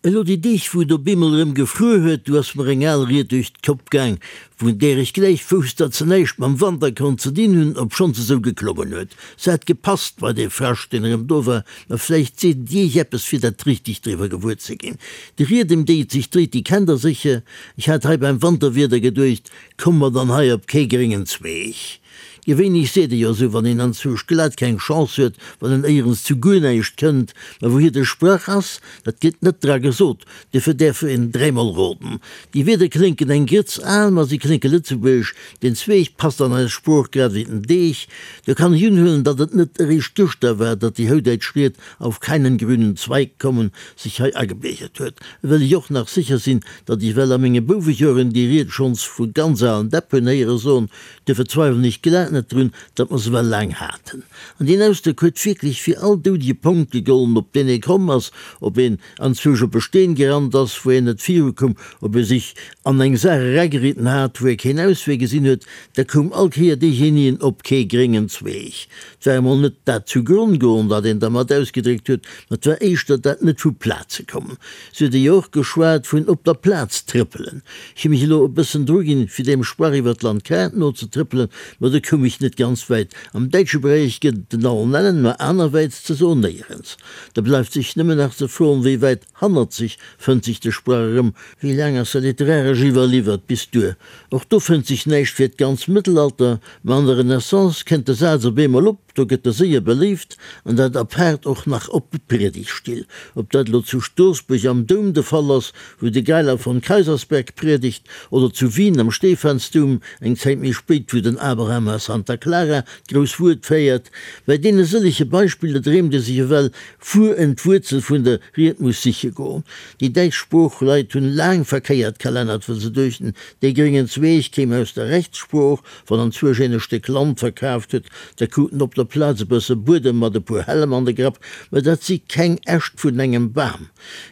Elo déi Deeg wou et op eemol erëm gefruer huet, du ass mer eng al Ried duerch d'Kopp gaang, vun där ech gläich wousst, datt se näischt mam Wanter konnt ze dinn hunn, obschonn se sou geklongen huet. Se hat gepasst bei dee Frascht, deen erëm do war, ma vläicht seet et iech eppes, fir dat richteg driwwer gewuer ze ginn. Déi Ried, ëm déi et sech dréit, déi kennt der sécher. Ech hat hei beim Wanterwieder geduecht, Komme mer dann hei op kee gréngen Zweeg? Gewéinlech seet ee jo esou, wann een anzwousch glat keng Chance huet, wann en éierens zu guer näischt kënnt. Mä wouhier de Sprach ass, dat gëtt net dra gesot, duerfir däerf een dräimol roden. Déi Wierder klénken eng Grëtz al, ma si klénke lëtzebuergesch. Den Zweeg passt an eis Sprooch grad ewéi den Deeg. Do kann ech unhuelen, datt et net eréischt gëschter war, datt déi houdäitsch Ried auf keinen grünen Zweig kommen sech hei agebiergert huet. Well ech och nach sécher sinn, datt ech well a menge Bouwejoren déi Ried schonns vu ganz alen Däpp hunn héiere soen, Duerfir zweiwelen ech glat net drun, datt mer se well laang haten. An deen Ausdrock huet wierklech fir all doudege Ponkt gegollen, op deen ee komm ass, ob een anzwousch op e Steen gerannt ass, wou een net virukoum, ob ee sech an eng Saach erageriden hat, wou ee keen Auswee gesinn huet, da koum all Kéier deejenien op kee gréngen Zweeg. 't war emol net dat zu Gronn goen, wat een dermat ausgedréckt huet, ma 't war éischter dat net vu Plaze kommen. Se huet jo och geschwat vun op der Plaz trëppelen. Ech hu mech elo e bëssen druginn, fir deem Sprach iwwer d'Landkaart nozetrëppelen, ma do koum ech net ganz wäit. Am däitsche Beräich gëtt et en allen Ellen, ma anerwäits ze soen néierens. Da bleift sech nëmmen nach ze froen, wéi wäit hannerzeg fënnt sech de Sprach erëm? Wéi laang ass se literaresch iwwerliwwert bis duer? Och do fënnt sech näischt fir d'ganz Mëttelalter, ma an der Renaissance kënnt de Saz op eemol op. Do gëtt e séier beléift, an dat apaart och nach op Priedigtstill. Ob dat elo zu Stoorsbuerg am Doum de Fall ass, wou de Geiler von Kaysersberg priedegt, oder zu Wien am Stephansdoum, eng Zäit méi spéit, wou den Abraham a Santa Clara d'grouss Wuert féiert. Bei deene sëllege Beispiller dreemt ee sech ewell, wuer en d'Wuerzel vun der Ried muss siche goen. Déi däitsch Sproochleit hunn laang verkéiert kalennert, wëll se duechten, dee gréngen Zweeg kéim aus der Rechtssprooch, Wann anzwousch een e Stéck Land verkaaft huet, da krut en op der Plaz e bësse Buedem mat e puer Hällem an de Grapp, mä dat si keng Äscht vun engem Bam.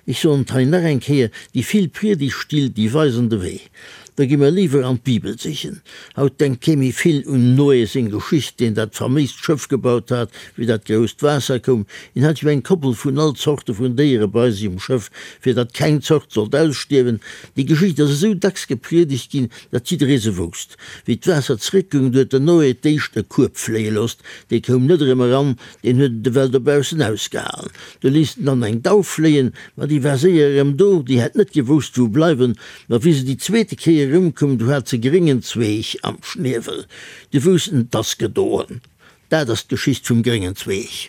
Ech soen et hei nach eng Kéier, déi vill Priedigtstill, déi weisen de Wee. Da gi mer léiwer an d'Bibel sichen. Haut denkt kee méi vill un Noé seng Geschicht, deen dat faméist Schëff gebaut hat, wéi dat grousst Waasser koum. Hien hat jo eng Koppel vun all Zorte vun Déiere bei sech um Schëff, fir datt keng Zort sollt ausstierwen. Déi Geschicht ass esou dacks gepriedegt ginn, datt jidderee se wousst. Wéi d'Waasser zréckgoung, du huet den Noé d'éischt e Kueb fléie loosst, dee koum net erëm eran, deen huet et ewell dobaussen ausgehalen. Du léisst en dann eng Dauf fléien, ma déi war séier erëm do, déi hätt net gewousst wou bleiwen, ma wéi se déi zweete Kéier erëmkoum, du hat se gréngen Zweeg am Schniewel, du wousst en, 't ass gedoen. Dat ass d'Geschicht vum gréngen Zweeg.